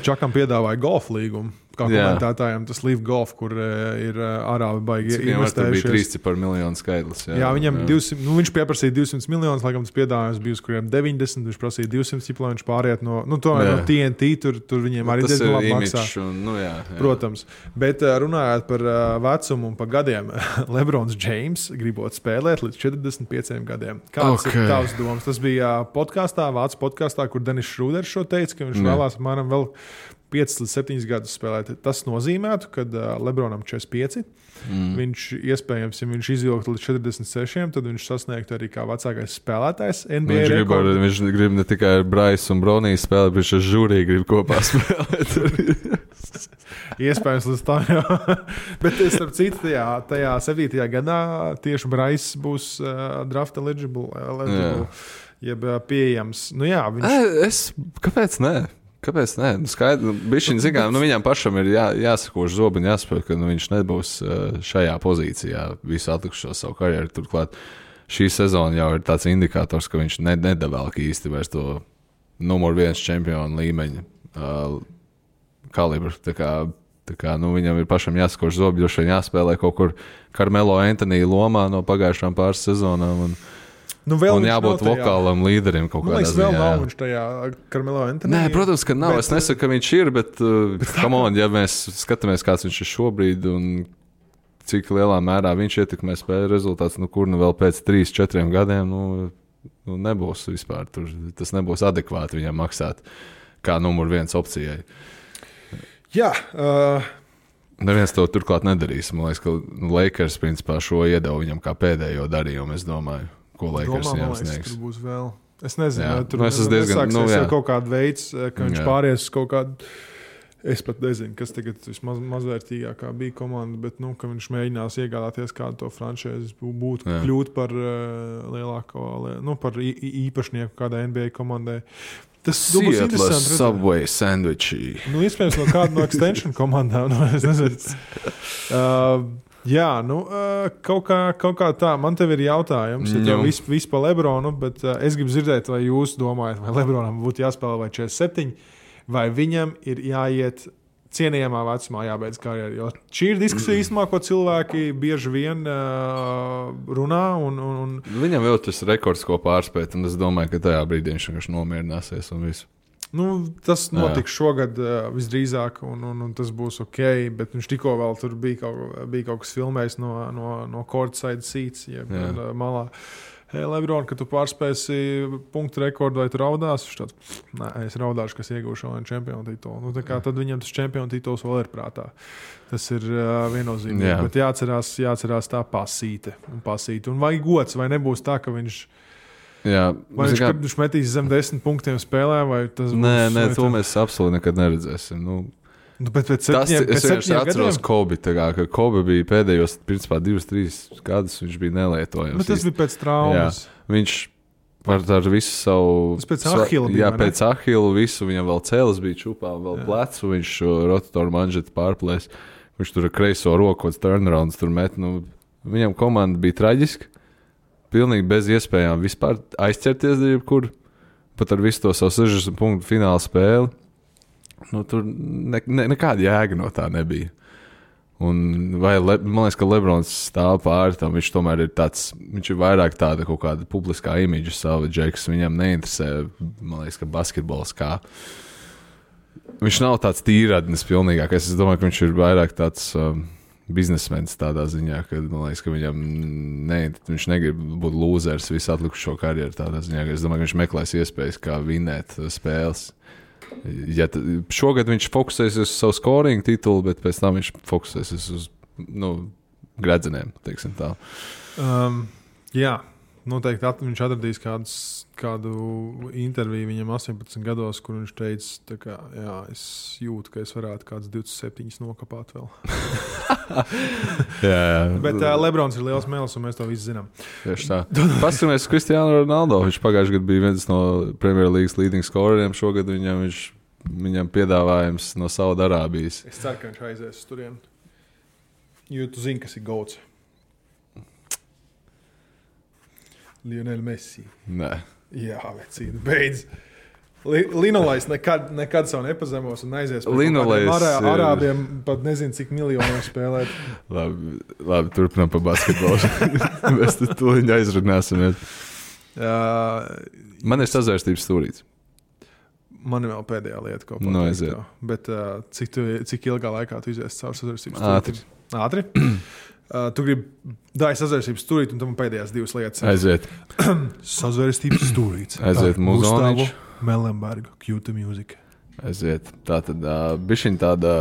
Čakam piedāvāja golf līgumu. Kā komentētājiem tas Live Golf, kur ir ārābi baigi investējušies. Tur bija 3 miljonu skaitlis. Jā, viņam 200, nu, viņš pieprasīja 200 miljonus, laikam tas piedāvājums bija uz kuriem 90, viņš prasīja 200, lai viņš pāriet no TNT, tur viņiem arī diezgan labi maksā. Protams. Bet runājot par vecumu un par gadiem, Lebrons James gribot spēlēt līdz 45 gadiem. Kāds ir tavs domas? Tas bija Vācu podkastā, kur Denis Šrūders šo teica, ka viņš vēlās apmēram vēl 5 līdz 7 gadus spēlēt. Tas nozīmētu, ka Lebronam 45. Viņš iespējams, ja viņš izvilktu līdz 46, tad viņš sasniegtu arī kā vecākais spēlētājs NBA rekordu. Viņš grib ne tikai ar Bryce un Broniju spēlēt, bet viņš ar žūriju grib kopā spēlēt. Iespējams, līdz tā jau. Bet starp citu, tajā 7. gadā tieši Bryce būs draft eligible, jeb pieejams. Nu jā, Kāpēc ne? Kāpēc ne? Viņam pašam ir jāsakož zobi un jāsaprot, ka viņš nebūs šajā pozīcijā visu atlikušo savu karjeru. Turklāt šī sezona jau ir tāds indikators, ka viņš nedavēlk īsti vairs to numur 1 čempionu līmeņa kalibru. Tā kā viņam ir pašam jāsakož zobi, jo šeit jāspēlē kaut kur Carmelo Anthony lomā no pagājušām pāris sezonām. Un jābūt vokālam līderim kaut kādā ziņā. Vēl nav viņš tajā Carmelo Anthony. Nē, protams, ka nav. Es nesaku, ka viņš ir, bet come on, ja mēs skatāmies, kāds viņš ir šobrīd un cik lielā mērā viņš ietekmē spēļu rezultāts, kur vēl pēc 3-4 gadiem nebūs vispār. Tas nebūs adekvāti viņam maksāt kā numur 1 opcijai. Jā. Neviens to turklāt nedarīs. Man liekas, ka Lakers principā šo iedeva viņam kā pēdējo darījumu, es domāju. Ko Lakers viņam sniegs. Tur būs vēl. Es nezinu, jā. Tur nesāksies kaut kāda veids, ka viņš pāries kaut kādu. Es pat nezinu, kas tagad vismazvērtīgākā bija komanda, bet ka viņš mēģinās iegādāties kādu to franšīzi, kļūt par lielāko, par īpašnieku kādai NBA komandai. Tas būs interesanti. Subway sandwichi. Iespējams no kāda no extension komandām. Es nezinu. Jā, kaut kā tā. Man tev ir jautājums, ja tev viss pa Lebronu, bet es gribu dzirdēt, vai jūs domājat, vai Lebronam būtu jāspēlē vai 47, vai viņam ir jāiet cienījamā vecumā jābeidz karjeru. Jo šī ir diskusija īstenībā, ko cilvēki bieži vien runā. Viņam vēl tas rekords, ko pārspēt, un es domāju, ka tajā brīdī viņš vienkārši nomierināsies un visu. Tas notiks šogad visdrīzāk, un tas būs ok, bet viņš tikko vēl tur bija kaut kas filmējis no courtside seats, jeb malā. Hei, Lebron, kad tu pārspēsi punktu rekordu, vai tu raudās? Viņš tāds, nē, es raudāšu, kas iegūšu vēl čempionu titulu. Tad viņam tas čempionu tituls vēl ir prātā. Tas ir viennozīmīgi, bet jāatcerās tā pasīte. Un vai gods, vai nebūs tā, ka viņš... Jā, vai viņš metīs zem 10 punktiem spēlē, vai tas būs... Nē, to mēs absolūti nekad neredzēsim. Bet pēc Tas, es vienkārši atceros gadiem? Kobe, ka Kobe bija pēdējos, principā, 2-3 gadus, viņš bija nelietojams. Bet tas bija pēc traumas. Viņš ar visu savu... Tas pēc Ahila bija, jā, pēc Ahila visu, viņam vēl cēlis bija čupā, vēl plecu, viņš rotatoru manžetu pārplēs, viņš tur ar kreiso roku, turnarounds tur met, viņam komanda bija traģiska, pilnīgi bez iespējām vispār aizķerties jebkur, pat ar visu to savu 60 punktu fināla spēli. Tur nekāda jēga no tā nebija. Un man liekas, ka Lebrons stāv pāri tam, viņš tomēr ir tāds, viņš ir vairāk tāda kaut kāda publiskā imidža savadžeks, viņam neinteresē, man liekas, ka basketbols kā. Viņš nav tāds tīradnis pilnīgākais, es domāju, ka viņš ir vairāk tāds biznesmenis tādā ziņā, ka man liekas, ka viņam viņš negrib būt lūzers visu atlikušo karjeru tādā ziņā, ka es domāju, ka viņš meklēs iespējas, kā vinēt spēles. Ja šogad viņš fokusēsies uz savu scoringu titulu, bet pēc tam viņš fokusēsies uz gredzenēm, teiksim tā. Jā, noteikti viņš atradīs kādu interviju viņam 18 gados, kur viņš teica, ka jā, es jūtu, ka es varētu kāds 27 nokapāt vēl. jā. Bet Lebrons ir liels mēls, un mēs to visi zinām. Tieši tā. Paskatāmies Cristiano Ronaldo. Viņš pagājušajā gadā bija viens no Premier Leagues leading scoreriem. Šogad viņam piedāvājums no Saudarābijas. Es ceru, ka viņš aizies uz turieni. Jo tu zini, kas ir goats. Lionel Messi. Nē. Jā, vecīni, beidz. Linolais nekad savu nepazemos un aizies pēc Arābiem pat nezinu, cik miljoniem spēlēt. Labi, turpinām par basketbolu. Mēs to viņa aizrunāsimies. Man ir sazvērstības stūrīts. Man ir vēl pēdējā lieta, ko pateikt. Bet cik ilgā laikā tu izies caur sazvērstības stūrīti? Ātri. Tu gribi dāj sazvērstības stūrīti, un tam pēdējās divas lietas. Aiziet. Sazvērstības stūrīts. Aiziet Muzonič. Melenberga, Q2 Music. Aiziet. Tātad bišķiņ tāda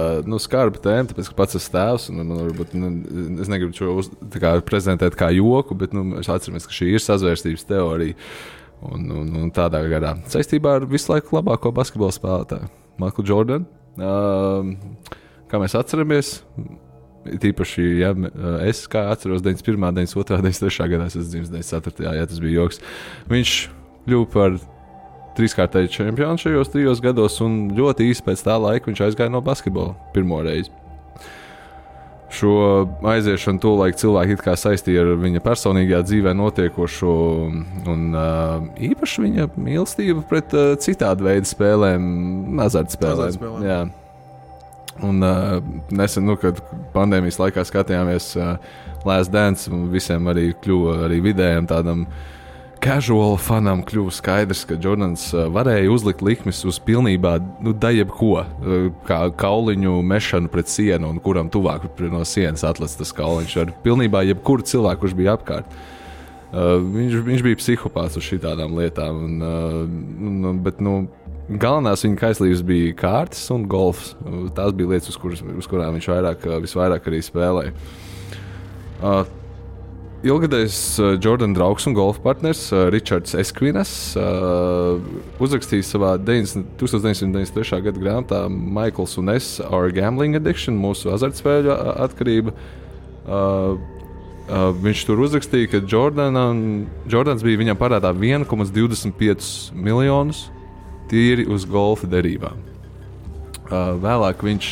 skarba tēma, tāpēc, ka pats esmu tēvs, un man varbūt, es negribu šo prezentēt kā joku, bet mēs atceramies, ka šī ir sazvērstības teorija. Un tādā garā. Saistībā ar visu laiku labāko basketbola spēlētāju, Michael Jordan. Kā mēs atceramies, tīpaši, ja es kā atceros 91., 92., 93. gadā, es esmu dzimis 94. Jā, tas bija joks. Viņš kļuva par 3-kārtēju čempionu šajos 3 gados, un ļoti īsi pēc tā laika viņš aizgāja no basketbola pirmo reizi. Šo aiziešanu tolaik cilvēki it kā saistīja ar viņa personīgajā dzīvē notiekošo, un īpaši viņa mīlestība pret citādu veidu spēlēm, azartspēlēm. Jā. Un nesen, kad pandēmijas laikā skatījāmies Last Dance, visiem arī kļuva arī vidējiem tādam casual fanam kļuva skaidrs, ka Jordans varēja uzlikt likmes uz pilnībā jebko, kā kauliņu mešanu pret sienu, un kuram tuvāk no sienas atlec tas kauliņš ar pilnībā jebkuru cilvēku, kurš bija apkārt. Viņš bija psihopāts uz šitādām lietām, bet galvenās viņa kaislības bija kārtas un golfs. Tās bija lietas, uz kurām viņš visvairāk arī spēlēja. Ilgadējs Jordan draugs un golfa partners Richards Eskvinas uzrakstīja savā 1993. gada grāmatā Michaels un es Our Gambling Addiction, mūsu azartspēļu atkarība. Viņš tur uzrakstīja, ka Jordans bija viņam parādā 1,25 miljonus tīri uz golfa derībām. Vēlāk viņš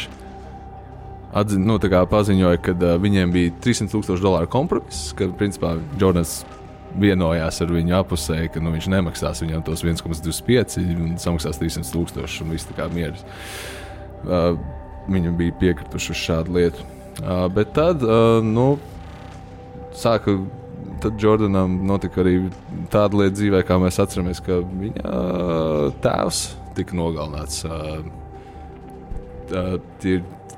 paziņoja, ka viņiem bija $300,000 kompromiss, ka principā Jordans vienojās ar viņu apusēji, ka viņš nemaksās viņam tos 1,25 un samaksās $300,000 un viss tā kā mieras. Viņi bija piekrituši uz šādu lietu. Bet tad, tad Jordanam notika arī tāda lieta dzīvē, kā mēs atceramies, ka viņa tēvs tika nogalināts.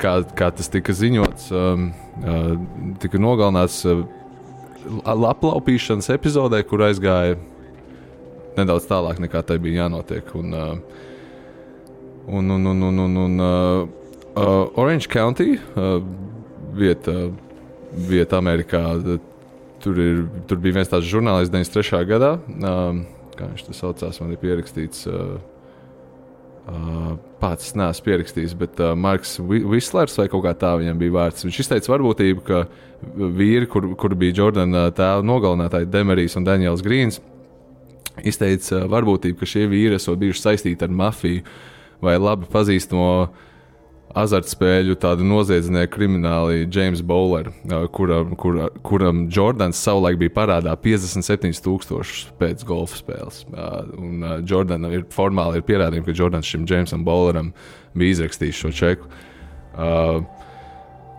Kā tas tika ziņots, tika nogalināts aplaupīšanas epizodē, kur aizgāja nedaudz tālāk nekā tai bija jānotiek. Orange County, vieta Amerikā, tur bija viens tāds žurnālists 93. gadā, kā viņš tas saucās, man ir pierakstīts Pats neesmu pierakstījis, bet Marks Vislers vai kaut kā tā viņam bija vārds. Viņš izteica varbūtību, ka vīri, kur bija Jordana tēva nogalinātāji Demerijs un Daniels Grīns, izteica varbūtību, ka šie vīri esot bijuši saistīti ar mafiju vai labi pazīstamo azartspēļu tādu noziedznieku krimināli James Bowler, kuram Jordans savulaik bija parādā 57,000 pēc golfa spēles. Un Jordan formāli ir pierādījumi, ka Jordans šim Jamesam Bowleram bija izrakstījis šo čeku.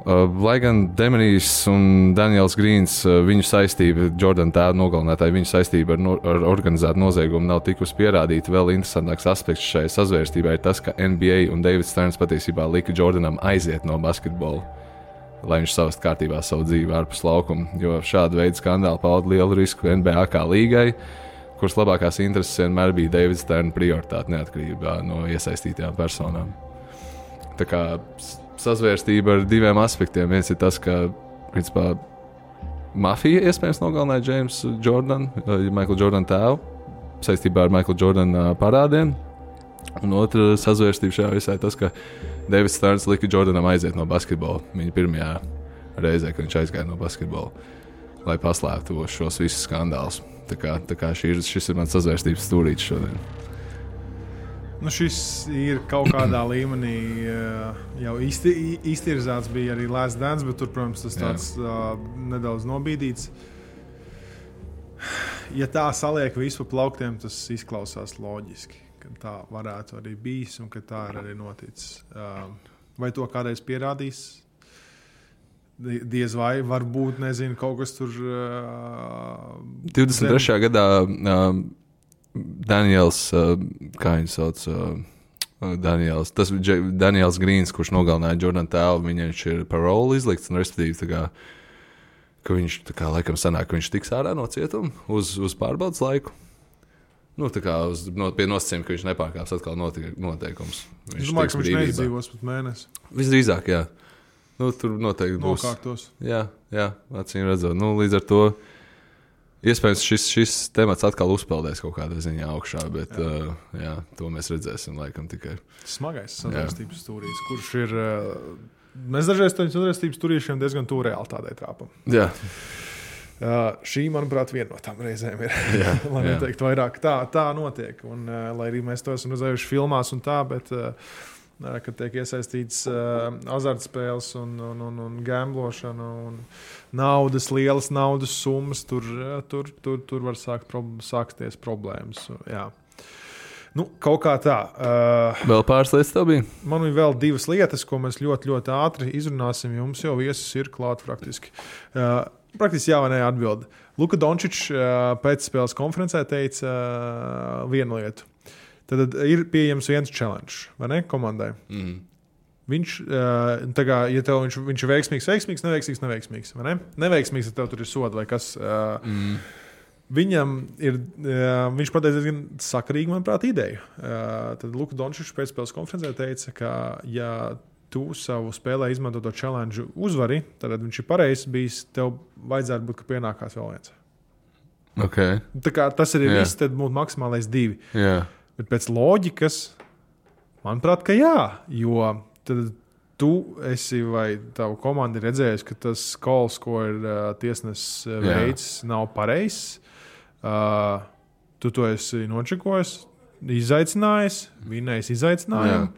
Lai gan Demerijs un Daniels Grīns, viņu saistība, Jordan tēva nogalinātāji, viņu saistība ar organizētu noziegumu nav tikusi pierādīta. Vēl interesantāks aspekts šai sazvērstībā ir tas, ka NBA un Davids Sterns patiesībā lika Jordanam aiziet no basketbola, lai viņš savast kārtībā savu dzīvi ārpus laukuma, jo šāda veida skandāli pauda lielu risku NBA kā līgai, kuras labākās intereses vienmēr bija Davids Sterna prioritāte neatkarībā no iesaistītajām personām. Tā kā sazvērstība ar diviem aspektiem. Viens ir tas, ka principā mafija iespējams nogalināja Jamesu Jordanu, Michael Jordan tēvu, saistībā ar Michael Jordan parādiem. Un otra sazvērstība šajā visā ir tas, ka Davids Sterns lika Jordanam aiziet no basketbola viņa pirmajā reizē, kad viņš aizgāja no basketbola, lai paslēptu šos visus skandālus. Tā kā šis ir mans sazvērstības stūrītis šodien. Nu, šis ir kaut kādā līmenī jau iztirzāts, bija arī Last Dance, bet tur, protams, tas tāds nedaudz nobīdīts. Ja tā saliek visu pa plauktiem, tas izklausās loģiski, ka tā varētu arī bijis un ka tā ir arī noticis. Vai to kādreiz pierādīs? Diez vai, varbūt, nezinu, kaut kas tur... 23. gadā... Daniels, kā viņu sauc, tas bija Daniels Grīns, kurš nogalināja Jordan tēvu, viņš ir paroli izlikts, un respektīvi tā kā, ka viņš tā kā laikam sanāk, ka viņš tiks ārā no cietuma uz pārbaudas laiku. Nu, tā kā pie nosacījuma, ka viņš nepārkāps atkal noteikums. Es domāju, ka viņš neizdzīvos pat mēnesi. Visdrīzāk, jā. Nu, tur noteikti būs. Nokārtos. Jā, acīm redzot. Nu, līdz ar to iespējams, šis temats atkal uzpeldēs kaut kādā ziņā augšā, bet jā, to mēs redzēsim laikam tikai. Smagais sazvērstības stūrīs, kurš ir... Mēs dažreiz to sazvērstības stūrīšiem diezgan tuvu realitātei trāpam. Jā. Šī, manuprāt, viena no tām reizēm ir. Lai neteikt vairāk, tā notiek. Un, lai arī mēs to esam redzējuši filmās un tā, bet... kad tiek iesaistīts azartspēles un gamblošana un lielas naudas summas, tur var sākties problēmas. Jā. Nu, kaut kā tā. Vēl pāris lietas tev bija? Man ir vēl divas lietas, ko mēs ļoti, ļoti ātri izrunāsim. Jums jau viesis ir klāt praktiski. Praktiski jā vai nē atbildi. Luka Dončičs pēc spēles konferencē teica vienu lietu. Tad ir pieejams viens challenge, vai ne, komandai. Mm. Viņš, tā kā, ja tev viņš ir veiksmīgs, neveiksmīgs, vai ne? Neveiksmīgs, ja tev tur ir soda vai kas. Viņam ir, viņš pateica diezgan sakarīgi, manuprāt, ideju. Tad Luka Dončičs pēc spēles konferencē teica, ka ja tu savu spēlē izmanto to challenge uzvari, tad viņš ir pareizs bijis, tev vajadzētu būt, ka pienākās vēl viens. Okay. Tā kā tas ir viss, tad būtu maksimālais 2. Yeah. Bet pēc loģikas, manuprāt, ka jā, jo tad tu esi vai tavu komanda ir redzējusi, ka tas calls, ko ir tiesnesis veids, nav pareizs. Tu to esi nočekojis, izaicinājis, vinnējis izaicinājumu.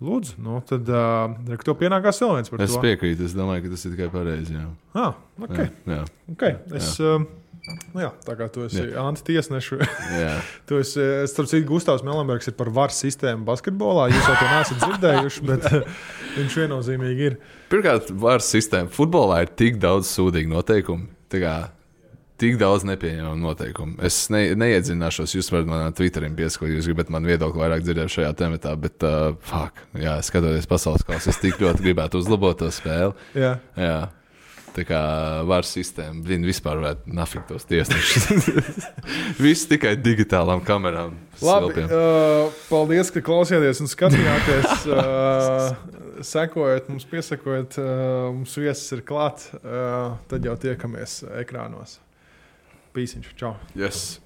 Lūdzu, nu tad tev pienākās vēl viens par to. Es piekrītu, es domāju, ka tas ir tikai pareizi. Okay. Jā. Okay. Jā, tā kā tu esi antitiesnešu. Tu esi, starp citu, Gustavs Melenbergs ir par VAR sistēmu basketbolā. Jūs jau to neesat dzirdējuši, bet viņš viennozīmīgi ir. Pirmkārt, VAR sistēma futbolā ir tik daudz sūdīgu noteikumu. Tik daudz nepieņemamu noteikumu. Es neiedzināšos, jūs varat manā Twitterim pieskot, jūs gribat man viedokli vairāk dzirdēt šajā tematā, bet skatoties pasaules kausu, es tik ļoti gribētu uzlabot to spēli. Jā. Tā kā VAR sistēma, vispār varētu nafikt tos tiesnešus. Viss tikai digitālām kamerām. Labi, paldies, ka klausījāties un skatījāties. Sekojot, mums piesakojot, mums viesis ir klāt. Tad jau tiekamies ekrānos. Pīsiņš, čau. Yes.